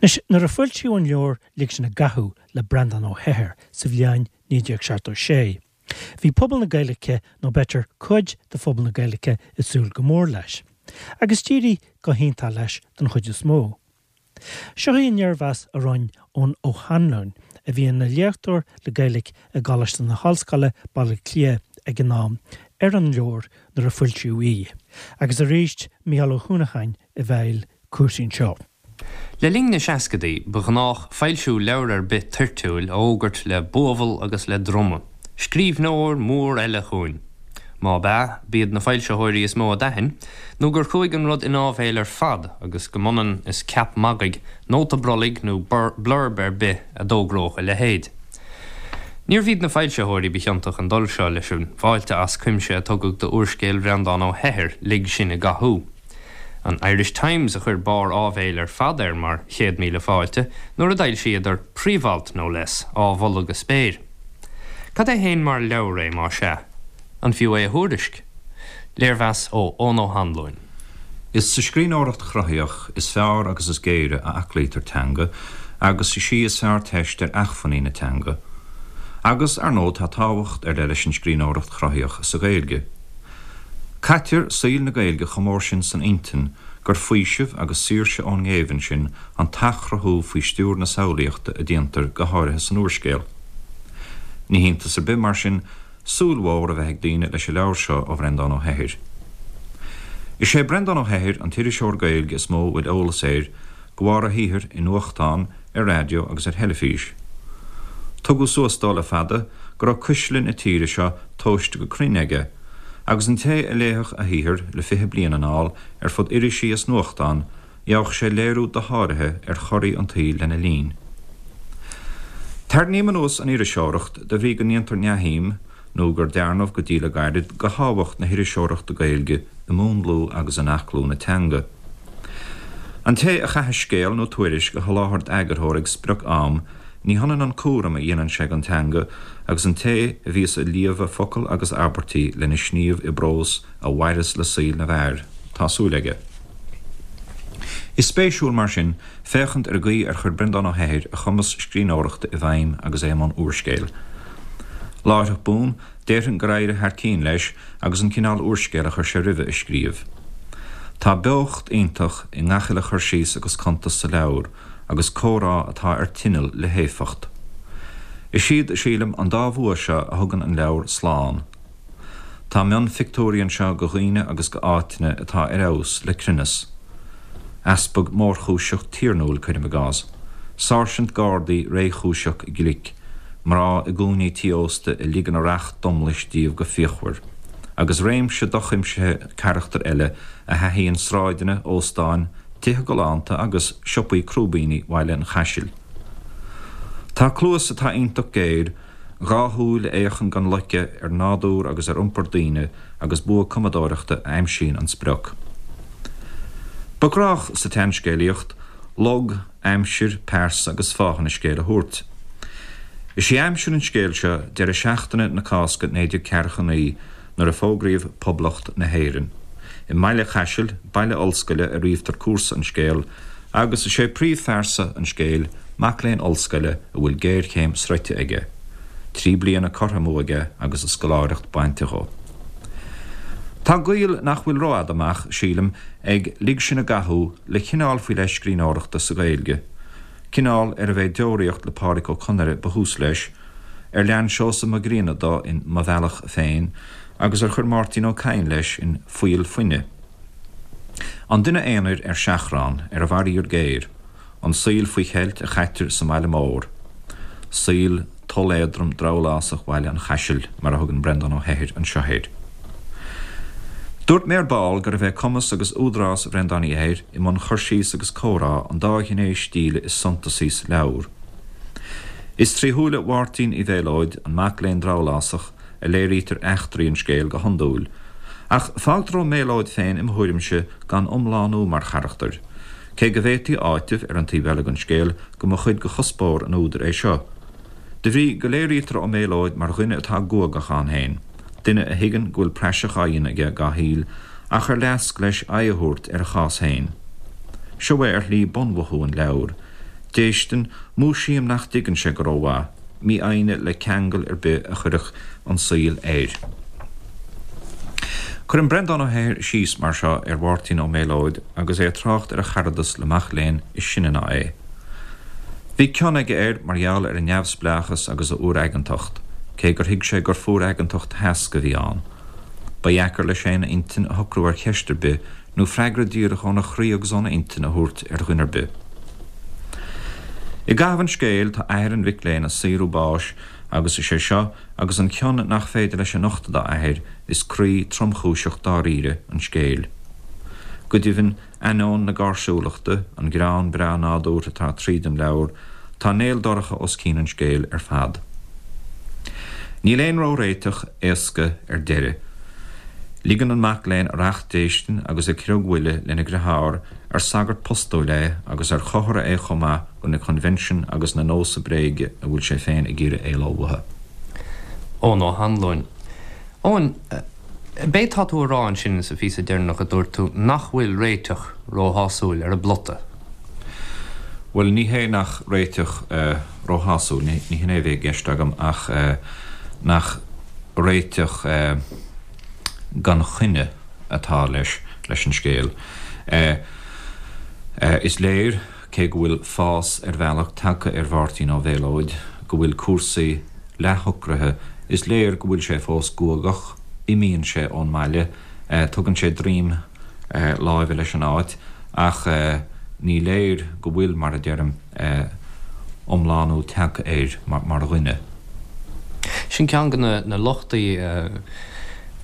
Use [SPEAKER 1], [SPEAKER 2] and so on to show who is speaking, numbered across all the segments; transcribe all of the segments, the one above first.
[SPEAKER 1] Anois, nuair a foilsíodh an leabhar Lig Sinn i gCathú le Breandán Ó hEithir sa bhliain 1976, bhí pobal na Gaeilge, nó b'fhéidir cuid de phobal na Gaeilge, ag súil go mór leis. Agus d'éirigh go hiontach leis don chuid is mó. Seo í an léirmheas a rinne Eoin Ó hAnluain, a bhí ina léachtóir le Gaeilge i gColáiste na hOllscoile, Baile Átha Cliath ag an am, ar an leabhar nuair a foilsíodh í. Agus arís Mícheál Ó hUanacháin i bhfeighil cúrsaí anseo.
[SPEAKER 2] Le linn na seascadaí, ba ghnách foilsiú leabhar ar bith toirtiúil a fhógairt le buabhall agus le druma, Scríbhneoir mór eile chugainn! Má b'ea, b'iad na foilsitheoirí is mó a d'aithin, nó gur chuaigh an rud in áibhéil ar fad agus go mb'ionann is ceap magaidh, nóta brollaigh nó blurb ar bith a d'fhógródh a leithéid. Níorbh iad na foilsitheoirí ba chiontach an dul seo leis an bhfáilte as cuimse a tugadh do úrscéal Bhreandáin Ó hEithir, Lig Sinn i gCathú. An Irish Times a chuir barr áibhéil ar fad air mar chéad míle fáilte nuair a d'fhoilsíodar príomhalt, no less, á mholadh go spéir. Cad é fhéin mar leabhar é, más ea? An fiú é a thuairisc? Léirmheas ó Eoin Ó hAnluain.
[SPEAKER 3] Is sa scríbhneoireacht chruthaíoch is fearr agus is géire a aclaítear teanga agus is í is fearr teist ar achmhainní na teanga. Agus, ar ndóigh, tá tábhacht ar leith leis an scríbhneoireacht chruthaíoch sa Ghaeilge. Caitear saol na Gaeilge chomh mór sin san intinn gur faoiseamh agus saoirse ón ngéibheann sin an t-athchruthú faoi stiúir na samhlaíochta a déantar go háirithe san úrscéal. Ní hiontas ar bith, mar sin, súil mhór a bheith ag daoine leis an leabhar seo ó Bhreandán Ó hEithir. Is é Breandán Ó hEithir an t-iriseoir Gaeilge is mó a bhfuil eolas air de bharr a shaothair i nuachtáin, ar raidió agus ar theilifís. Tugadh suas dó le fada go raibh cuisle na tíre seo tomhaiste go cruinn aige, agus an té a léifeadh a shaothar le 20 bliain anall ar fud irisí is nuachtán, gheobhadh sé léiriú dosháraithe ar chorraí an tsaoil lena linn. Tarraingím anuas an iriseoireacht de bhrí go ndéantar neamhshuim, nó gur dearnadh go dtí le gairid, de thábhacht na hiriseoireachta Gaeilge i múnlú agus in aclú na teanga. An té a chaithfeas scéal nó tuairisc a sholáthar d'eagarthóir ag sprioc-am, ní hionann an cúram a dhéanann sé don teanga agus an té a bhíos ag líomhadh focal agus abairtí lena sníomh i bprós a mhaireas le saol na bhfear, tá súil aige. Is spéisiúil, mar sin, féachaint ar an gcaoi ar chuir Breandán Ó hEithir a chumas scríbhneoireachta i bhfeidhm agus é i mbun úrscéil. Láithreach bonn, déarfainn gur éirigh thar cinn leis agus an cineál úrscéil a chuir sé roimhe a scríobh. Tá beocht iontach i ngach uile chur síos agus cuntas sa leabhar agus comhrá atá ar tinneall le héifeacht. Is iad, sílim, an dá bhua seo a thugann an leabhar slán. Tá mionphictiúirí anseo de dhaoine agus de áiteanna atá ar fheabhas le cruinneas. Easpag mórchúiseach tiarnúil, cuirim i gcás. Sáirsint Gardaí réchúiseach glic. Mná i gcúinní tí ósta a ligeann a racht domlais díobh go fíochmhar. Agus réimse dochuimsithe carachtar eile a thaithíonn sráideanna, óstáin, tithe galánta agus siopaí crúibíní Bhaile an Chaisil. Tá cluas atá iontach géar, 2 shúil a fhéachann gan loiceadh ar nádúr agus ar iompar daoine agus bua cumadóireachta a aimsíonn an sprioc. Ba ghnách sa tseanscéalaíocht log, aimsir, pearsa agus fáthanna scéil a thabhairt. Is í aimsir an scéil seo deireadh seachtaine na Cásca 1949 nuair a fógraíodh Poblacht na hÉireann. I mBaile Chaisil, baile ollscoile, a ríomhtar cúrsa an scéil agus is é príomhphearsa an scéil mac léinn ollscoile a bhfuil géarchéim sroichte aige, 3 bliana curtha amú aige agus a scoláireacht bainte dho. Tá gaol nach bhfuil rófhada amach, sílim, ag Lig Sinn i gCathú le cineál faoi leith scríbhneoireachta sa Ghaeilge, cineál arbh é Deoraíocht le Pádraic Ó Conaire ba thús leis, ar lean Seosamh Mac Grianna dó in Mo Bhealach Féin agus ar chuir Máirtín Ó Cadhain leis in Fuíoll Fuine. An duine aonair ar seachrán, ar a bhfaraor géar, an saol faoi cheilt a chaitear sa mbaile mór, saol toll-éadrom drabhlásach Bhaile an Chaisil, mar a thugann Breandán Ó hEithir anseo air. Dúirt mé ar ball gurbh é cumas agus údarás Bhreandáin Uí Eithir i mbun cur síos agus comhrá an dá ghné stíle is suntasaí sa leabhar. Is trí shúile Mháirtín Uí Mhéalóid, an mac léinn drabhlásach, a léirítear eachtraí an scéil go hiondúil. Ach fágtar Ó Méalóid féin, i mo thuairimse, gan iomlánú mar charachtar. Cé go bhféadfaí a áiteamh, ar an taobh eile den scéal, go mba chuid de chuspóir an údair é seo. De bhrí go léirítear Ó Méalóid mar dhuine atá guagach ann féin, duine a thuigeann go bhfuil praiseach á dhéanamh aige dá shaol ach ar leasc leis aghaidh a thabhairt ar a chás féin. Seo é ar shlí bunmhothú an leabhair. Déistin, múisím nach dtuigeann sé go rómhaith, mífhoighne le ceangal ar bith a chuirfeadh an saol air. Cuireann Breandán Ó hEithir síos mar seo ar Mháirtín Ó Méalóid agus é ag trácht ar a charadas le mac léinn is sine ná é. Bhí cion aige air mar gheall ar a neamhspleáchas agus a fhuar-aigeantacht, cé gur thuig sé gur fuar-aigeantacht sheasc a bhí ann. Ba dheacair leis féin a intinn a shocrú ar cheist ar bith nó freagra díreach óna chroí agus óna intinn a thabhairt ar dhuine ar bith. I gcaitheamh an scéil tá athair an mhic léinn ag saothrú báis agus is é seo agus an cion nach féidir leis a nochtadh dá athair is croí tromchúiseach dáiríre an scéil. Go deimhin, ainneoin na gáirsiúlachta, an greann breá nádúrtha atá tríd an leabhar, tá néal dorcha os cionn an scéil ar fad. Níl aon ró-réiteach éasca ar deireadh. Ligeann an mac léinn a racht déistine agus a chriogmhoille lena dheartháir, ar sagart postúil é agus ar chomhartha é chomh maith go na coinbhinsin agus na nósa bréige a bhfuil sé féin ag iarraidh éaló uathu.
[SPEAKER 2] Eoin Ó hAnluain. Eoin, b'é tá tú a rá ansin sa phíosa deireanach a dúirt tú nach bhfuil réiteach róshásúil ar an bplota?
[SPEAKER 3] Bhuel, ní hé nach réiteach róshásúil, ní hin é a bhí i gceist agam ach nach réiteach gan choinne atá leis leis an scéal. Is léir, cé go bhfuil fás ar bhealach tagtha ar Mháirtín Ó Mhéalóid, go bhfuil cúrsaí leathshocraithe, is léir go bhfuil sé fós guagach, imíonn sé ón mbaile, tugann sé droim láimhe leis an áit, ach ní léir go bhfuil, mar a deirim, iomlánú tagtha air mar dhuine.
[SPEAKER 2] Sin ceann de na lochtaí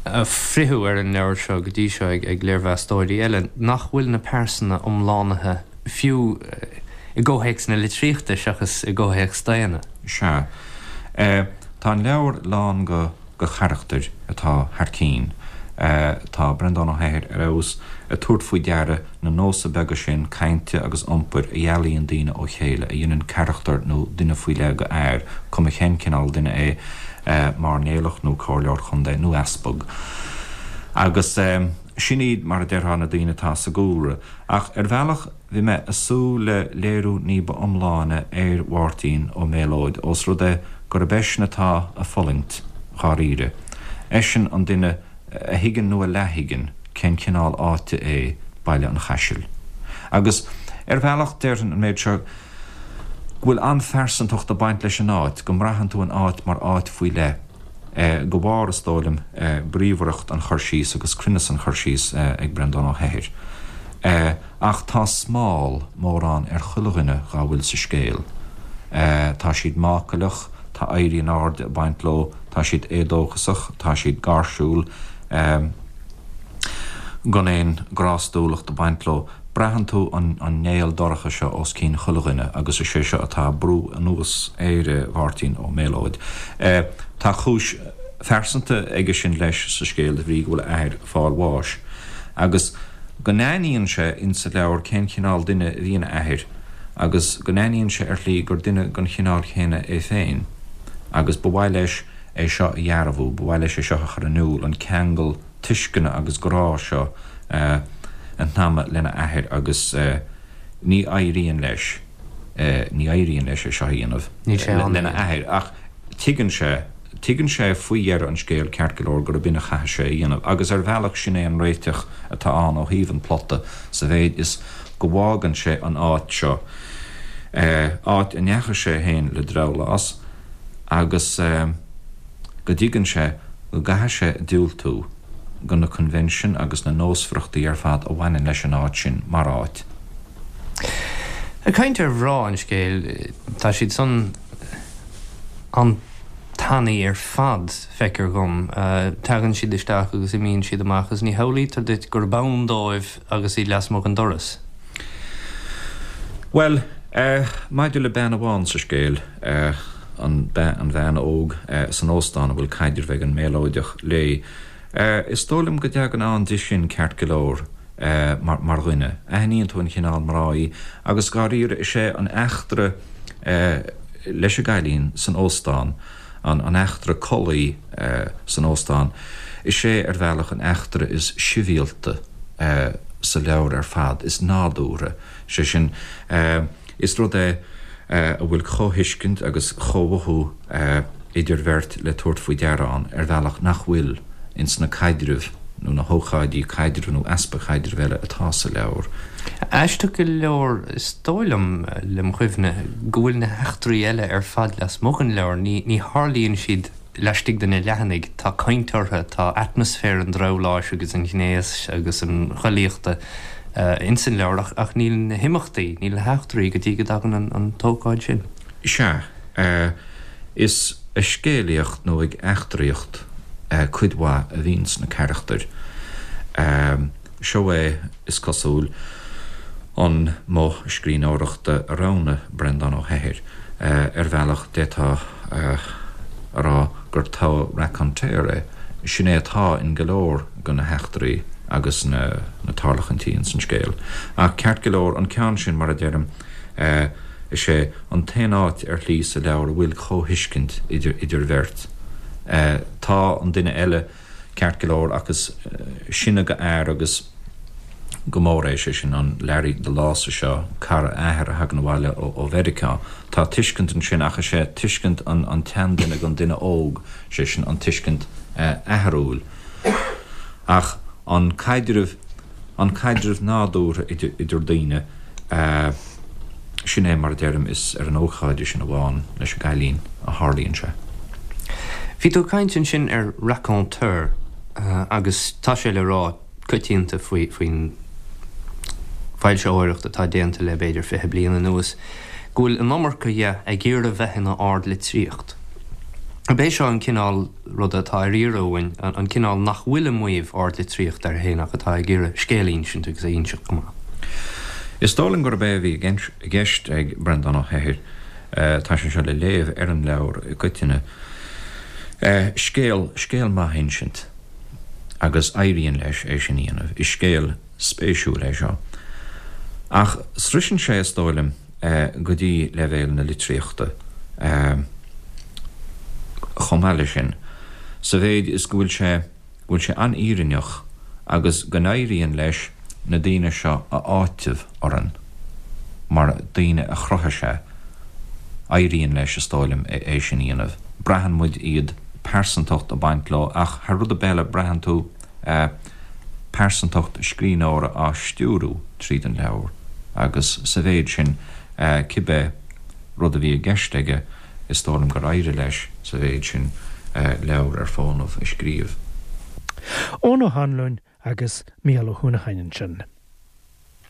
[SPEAKER 2] a fritheadh ar an leabhar seo go dtí seo ag léirmheastóirí eile, nach bhfuil na pearsana iomlánaithe fiú i gcomhthéacs na litríochta seachas i gcomhthéacs daonna.
[SPEAKER 3] Sea. Tá an leabhar lán go. go charachtair atá thar cinn. Tá Breandán Ó hEithir ar fheabhas ag tabhairt faoi deara na nósa beaga sin cainte agus iompair a dhealaíonn daoine ó chéile, a dhéanann carachtar nó duine faoi leith go fhear, cuma cén cineál duine é, mairnéalach nó comhairleoir chontae nó easpag. Agus sin iad, mar a déarfá, na daoine atá sa gcúlra. Ach ar bhealach, Bhí mé ag súil le léiriú ní ba iomláine ar Mháirtín Ó Méalóid ós rud é gurb eisean atá ag fulaingt, dháiríre. Eisean an duine a thuigeann nó a leath-thuigeann cén cineál áite é Baile an Chaisil. Agus ar bhealach, déarfainn an méid seo, go bhfuil an-phearsantacht ag baint leis an áit, go mbraitheann tú an áit mar áit faoi leith. De bharr, is dóigh liom, bríomhaireacht an chur síos agus cruinneas an chur síos ag Breandán Ó hEithir. Ach tá smál mórán ar chuile dhuine dhá bhfuil sa scéal. Tá siad mácaileach, tá éirí in airde ag baint leo, tá siad éadóchasach, tá siad gáirsiúil, gan aon ghrástúlacht ag baint leo. Braitheann tú an néal dorcha seo os cionn chuile dhuine agus is é seo atá ag brú anuas ar Mháirtín Ó Méalóid. Tá cúis phearsanta aige sin leis sa scéal de bhrí go bhfuil a athair ag fáil bháis agus go n-aithníonn sé insa leabhar cén chineál duine a bhí ina athair agus go n-aithníonn sé ar shlí gur duine den chineál chéanna é féin agus ba mhaith leis é seo a dhearbhú, ba mhaith leis é seo a chur in iúl, an ceangal tuisceana agus grá seo a shnaidhmeadh lena athair agus ní éiríonn leis, ní éiríonn leis é seo a dhéanamh lena athair ach tuigeann sé, tuigeann sé faoi dheireadh an scéil ceart go leor gurb in a chaithfidh sé a dhéanamh agus ar bhealach sin é an réiteach atá ann ó thaobh an phlota sa mhéid is go bhfágann sé an áit seo, áit a ndeachaigh sé féin le drabhlás agus. go dtuigeann sé go gcaithfidh sé diúltú go na coinbhinsin agus na nósmhaireachtaí ar fad a bhaineann leis an áit sin mar áit.
[SPEAKER 2] Ag caint ar mhná an scéil, tá siad san an-tanaí ar fad, feictear dhom. Tagann siad isteach agus imíonn siad amach agus ní shamhlaítear duit gurb ann dóibh agus iad lasmuigh den doras.
[SPEAKER 3] Bhuel, maidir le bean amháin sa scéal, an an bhean óg san óstán a bhfuil caidreamh ag an Méalóideach léi, is dóigh liom go dtagann ann di sin ceart go leor mar mar dhuine. Aithníonn tú an chineál mná í agus dháiríre is é an eachtra leis an gcailín san óstán, an an eachtra collaí san óstán, is é ar bhealach an eachtra is sibhialta sa leabhar ar fad, is nádúrtha, sé sin, is rud é. a bhfuil comhthuiscint agus comhmhothú idir bheirt le tabhairt faoi deara ann ar bhealach nach bhfuil ins na caidrimh nó na hócáidí caidrimh nó easpa caidrimh eile atá sa leabhar.
[SPEAKER 2] Aisteach go leor, is dóigh liom, lem chuimhne, go bhfuil na heachtraí eile ar fad lasmuigh den leabhar, ní tharlaíonn siad laistigh de na leathanaigh, tá caint orthu, tá atmaisféar an drabhláis agus an ghnéis agus an chollaíochta ins an leabhar ach níl na himeachtaí, níl na heachtraí go dtí go dtagann an t-ócáid sin.
[SPEAKER 3] Sea, is ag scéalaíocht nó ag eachtraíocht cuid mhaith a bhíonns na carachtair. Seo é, is cosúil, an modh scríbhneoireachta a roghnaigh Breandán Ó hEithir. Ar bhealach, d'fhéadfá a rá gur togha raconteur é. Sin é atá in go leor de na heachtraí agus na tarlachaintí ins an scéal. Ach ceart go leor, an ceann sin, mar a deirim, is é an t-aon áit ar shlí sa leabhar a bhfuil comhthuiscint idir bheirt. Tá an duine eile ceart go leor ach is sine go fhear agus go mór é, sé sin an Larry the Lása seo, cara a athar a thagann abhaile ó Mheiriceá. Tá tuiscint ansin ach is é tuiscint an tseanduine don duine óg, sé sin an tuiscint atharúil. Ach an caidreamh, an caidreamh nádúrtha idir daoine, sin é mar a deirim, is ar an ócáid sin amháin leis an gcailín a tharlaíonn sé.
[SPEAKER 2] Bhí tú ag caint ansin ar raconteur agus tá sé le rá coitianta faoin bhfoilsitheoireacht atá déanta le b'fhéidir 20 bliain anuas go bhfuil an iomarca dhe ag iarraidh bheith ina ardlitríocht. Ab é seo an cineál ruda atá ar iarraidh uainn, an cineál nach bhfuil ag maíomh ardlitríocht air féin ach atá ag iarraidh scéal a insint agus é a inseacht go maith.
[SPEAKER 3] Is dóigh liom gurb é a bhí i gceist ag Breandán Ó hEithir, tá sé seo le léamh ar an leabhar i gcoitinne, scéal, scéal maith a insint agus éiríonn leis é sin a dhéanamh. Is scéal spéisiúil é seo. Ach sroiseann sé, is dóigh liom, go dtí leibhéal na litríochta chomh maith leis sin, sa mhéid is go bhfuil sé, go bhfuil sé an-fhírinneach agus go n-éiríonn leis na daoine seo a áiteamh orainn mar daoine a chruthaigh sé. Éiríonn leis, is dóigh liom, é sin a dhéanamh. Braitheann muid iad, pearsantacht ag baint leo ach thar rud ar bith eile braitheann tú pearsantacht scríbhneora á stiúrú tríd an leabhar agus sa mhéid sin, cibé rud a bhí i gceist aige, is dóigh liom gur éirigh leis sa mhéid sin leabhar ar fónamh a scríobh.
[SPEAKER 1] Eoin Ó hAnluain agus Mícheál Ó hUanacháin ansin.